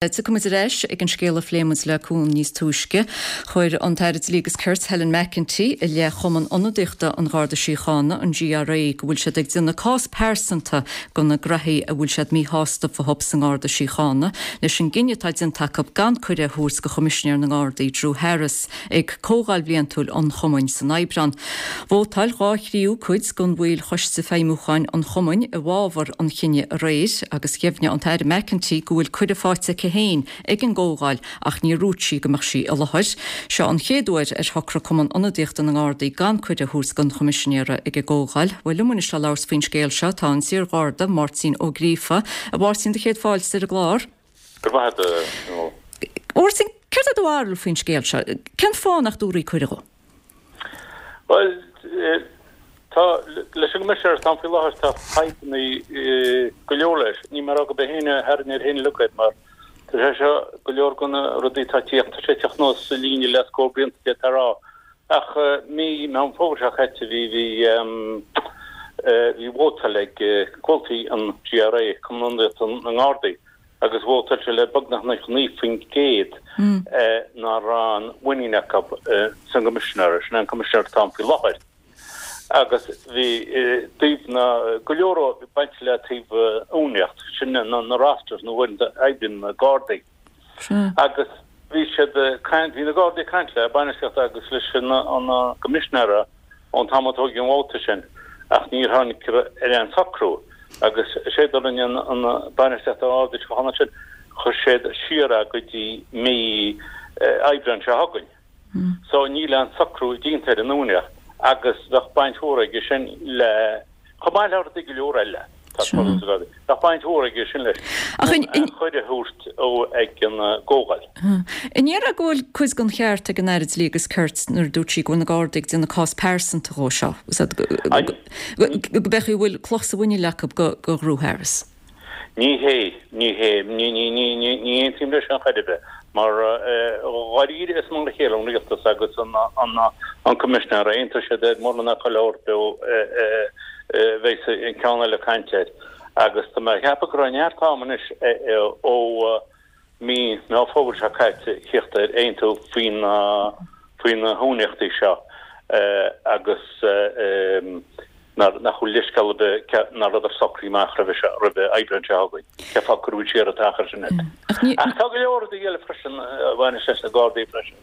Tiocfaidh muid ar ais ag an scéal a phléigh muid le Cuan níos túisce. Chuir an tAire Dlí agus Cirt, Helen McEntee, i leith Chumann Ionadaíochta an Gharda Síochána, an GRA, go bhfuil siad ag déanamh cás pearsanta de na graithí a bhfuil siad míshásta fúthu sa nGarda Síochána, leis an gcinneadh atá déanta acu gan cuireadh a thabhairt do Choimisinéir na nGardaí, Drew Harris, ag Comhdháil Bhliantúil an Chumainn san Aibreán. Vótáil dha thríú cuid den bhaill Choiste Feidhmiúcháin an Chumainn i bhfabhar an chinnidh aréir agus dheimhnigh an tAire McEntee go bhfuil cuireadh faighte aici féin ag an gcomhdháil ach níor dhúirt sí go mbeadh sí i láthair. Seo an chéad uair ar shocraigh Cumann Ionadaíochta na nGardaí gan cuireadh a thabhairt don Choimisinéara ag an gcomhdháil. Bhuel liom anois le labhairt faoin scéal seo tá an t-iar-Gharda, Máirtín Ó Gríofa. A Mháirtín, do chéad fáilte ar an gclár. Go raibh maith agat. A Mháirtín, céard é do bharúil faoin scéal seo? Cén fáth nach dtabharfaí cuireadh dhó? Bhuel, tá, leis an gCoimisinéir atá ann faoi láthair, tá fadhbanna go leor leis. Níl mé ag rá gurb é féin a tharraing air féin uilig mar tá sé seo, go leor de na rudaí atá ag tíocht, tá sé ag tíocht anuas sa líne le scór blianta d'fhéadfá a rá. Ach mí Meán Fómhair seo caite bhí bhí bhí vótáil ag comhaltaí an GRA, Cumann Ionadaíochta na nGardaí, agus vótáil siad le beagnach 99% nach raibh aon mhuinín acu san gCoimisinéir, sin é an Coimisinéir atá ann faoi láthair. Agus bhí taobh na, go leor baint le taobh uainíocht, sin na rosters na huaireanta a oibríonn na Gardaí. Agus bhí siad ag caint, bhí na Gardaí ag caint le bainistíocht agus leis an gCoimisinéara ón t-am a tógadh an vóta sin ach níor tháinig ar aon socrú agus is é a rinne an bainistíocht an Gharda Síochána ansin, chuir siad siar é go dtí mí Aibreáin seo chugainn. So níl aon socrú déanta ar an uainíocht agus bheadh baint mhór aige sin le, chomh maith le rudaí go leor eile atá ag tarlú sa Gharda, bheadh baint mhór aige sin leis an cuireadh a thabhairt dó ag an gcomhdháil. An ndéarfá go bhfuil cuid den cheart ag an Aire Dlí agus Cirt nuair a dúirt sí go bhfuil na Gardaí ag déanamh cás pearsanta dhó seo, go b'fhéidir go bhfuil cloch sa mhuineál acu do Dhrew Harris? Ní hé, ní hé, ní, ní, ní, ní, ní aontaím leis sin chor ar bith, mar dháiríre is mar a chéile an rialtas agus an, an, an Coimisinéir, aontóidh siad ar mórán chuile shórt a bheas an ceann eile ag caint air. Agus tá mé ag ceapadh go raibh neart ama anois ó mí Meán Fómhair seo caite theacht ar aontú faoi na, faoi na huainíochtaí seo agus nach bhfuil leithscéal ar bith nach rabhadar socraithe amach roimhe seo, roimhe Aibreán seo chugainn. Cén fáth a cuireadh siar an t-achar sin iad? Ach tá go leor rudaí eile freisin a bhaineas leis na Gardaí freisin.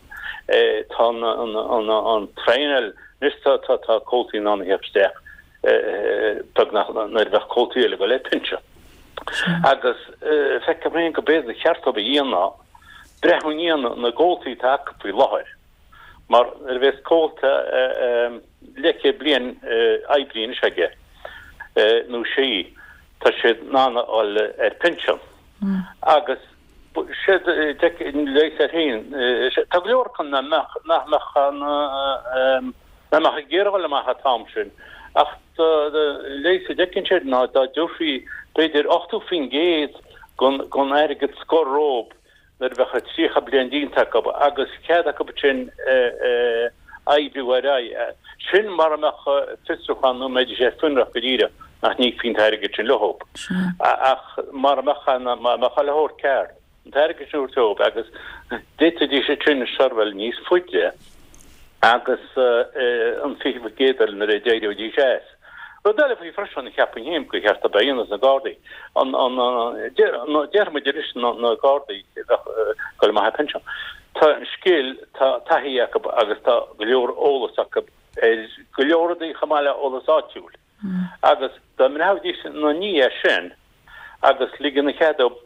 Tá an traenáil, anois tá comhaltaí in ann a theacht isteach beagnach nuair a bheadh comhaltaí eile ag dul ar pinsean. Agus feicim féin go b'fhéidir ba cheart dóibh a dhéanamh breathnú i ndiaidh na gcomhaltaí atá acu faoi láthair. Mar nuair a bheas comhalta leathchéad bliain oibrithe anois aige nó sí, tá siad in ann a dhul ar pinsean. Agus siad leigheas air féin, tá go leor acu nach mbeadh, nach mbeadh an, nach mbeadh ag iarraidh a dhul amach an t-am sin. Ach leigheas a d'fheicfinn siad ná dá dtabharfaí b'fhéidir 80% den airgead scoir dhóibh nuair a bheadh 30 bliain déanta acu agus cead acu ansin oibriú ar aghaidh. Sin mara mbeadh fiosrúchán nó mbeidís ar fionraí go díreach nach n-íocfaí an t-airgead sin leo. Ach mara mbeadh an, mara mbeadh chuile shórt ceart, an t-airgead sin a thabhairt dóibh agus d'fhéadfaidís ansin seirbheáil níos faide agus an 20% eile nuair a d'éireoidís as. Rud eile faoi freisin, cheapfainn féin gur cheart dóibh a dhéanamh sna Gardaí, an, an, déarfaidh muid arís na Gardaí a bheadh ag dul amach ar pinsean. Tá scil, tá taithí acu agus tá go leor eolas acu ar go leor rudaí chomh maith le eolas áitiúil. Agus dá mbreathnaídís ina ndiaidh sin agus ligean cead dóibh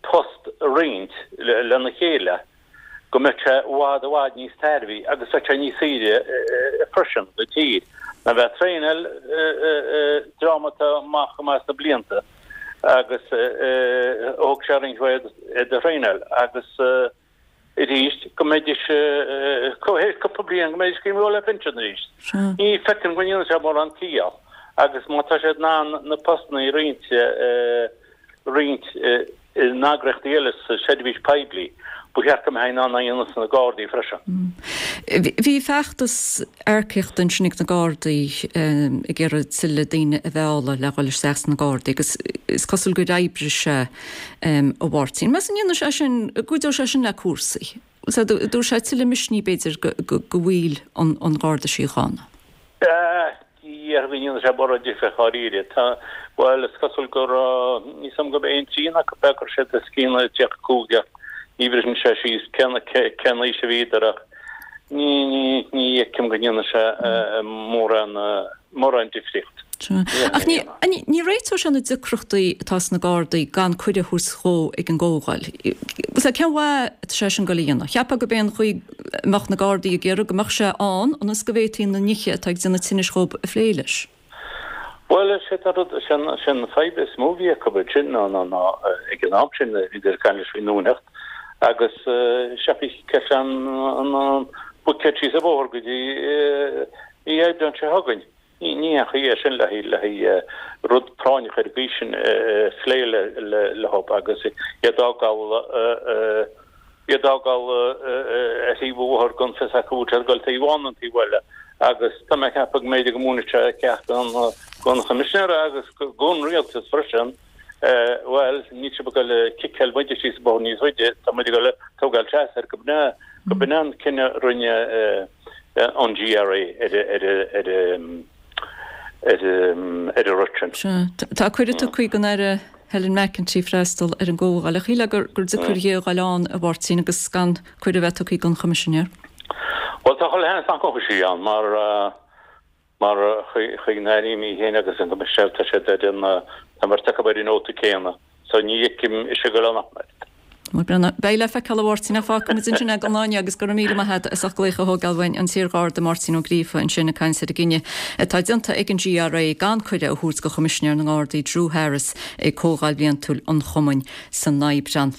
post a roinnt lena chéile, go mbeadh sé i bhfad i bhfad níos tairbhí agus bheadh sé níos saoire freisin do tír ná bheith ag traenáil dream atá amach go maith sna blianta agus thóg sé roinnt mhaith iad a thraenáil agus arís go mbeidís théis cúpla bliain go mbeidís ag dul ar pinsean arís. Ní feicim go ndéanann sé mórán ciall agus má tá siad in ann na postanna a roinnt roinnt in eagraíochtaí eile sa seirbhís poiblí. Ba cheart go mbeifeá in ann é a dhéanamh sna Gardaí freisin. Bhí feachtas earcaíochta ansin ag na Gardaí ag iarraidh tuilleadh daoine a mhealladh le dhul isteach sna Gardaí agus is cosúil gur oibrigh sé, a Mháirtín. Meas tú an ndéanfaidh sé sin, an gcuideoidh sé sin le cúrsaí? Dtabharfaidh sé tuilleadh misnigh b'fhéidir do bhaill an Gharda Síochána? Ní déarfainn go ndéanfaidh sé mórán difir dháiríre. Tá, bhuel, is cosúil go raibh, níl 's agam gurb é aon trian acu a chuir siad os cionn 35 ach ní bhriseann sé síos cén cén aois a bhíodar ach ní ní ní fheicim go ndéanfaidh sé mórán mórán difríocht. Ach ní ní réiteoidh sé na deacrachtaí atá sna Gardaí gan cuireadh a thabhairt dhó ag an gcomhdháil. Cén mhaith atá sé sin ag dul a dhéanamh? Cheapfá gurb é an chaoi a mbeadh na Gardaí ag iarraidh go mbeadh sé ann ionas go bhféadfaí na nithe atá ag déanamh tinnis dhób a phlé leis. Bhuel, is é an rud, is é an fadhb is mó a bhí acu ansin ná, ná, ná ag an am sin, bhíodar ag caint leis faoin nDúineacht agus seachas an, an, an buicéad síos an bóthar go dtí mí Aibreáin seo chugainn. Ní haon chaoi é sin le haghaidh rud práinneach ar an gcaoi sin a phlé leo agus iad á fhágáil iad á fhágáil ar thaobh an bhóthair gan fios acu bhfuil siad ag dul taobh amháin nó an taobh eile agus tá mé ag ceapadh go mb'fhéidir go múinfidh sé ceacht don Choimisinéir agus don rialtas freisin bhuel níl sibh ag dul ag ciceáil muide síos an bóthar níos faide tá muid ag dul ag tógáil seas air go b'in go b'in an cinneadh a rinne an GRA ar an rud sin. Sea. Tá cuireadh tugtha don Aire Helen McEntee freastal ar an gcomhdháil. Ach shílfeá gur deacair di a dhul ann, a Mháirtín, agus gan cuireadh a bheith tugtha don Choimisinéir. Bhuel, tá chuile sheans nach ngabhfaidh sí ann mar Mar chuig an Aire í féin agus an Coimisinéir tá siad ar an, tá an bheirt acu ar an nóta céanna. So ní fheicim ise ag dul ann ach an oiread. Bhuel, beidh le feiceáil a Mháirtín ach fágfaidh muid ansin é don lá inniu agus go raibh míle maith agat as ucht glaoch a thógáil uainn, an t-iarGharda Máirtín Ó Gríofa ansin ag caint ar an gcinneadh atá déanta ag an GRA gan cuireadh a thabhairt do Choimisinéir na nGardaí Drew Harris ag Comhdháil Bhliantúil an Chumainn san Aibreán.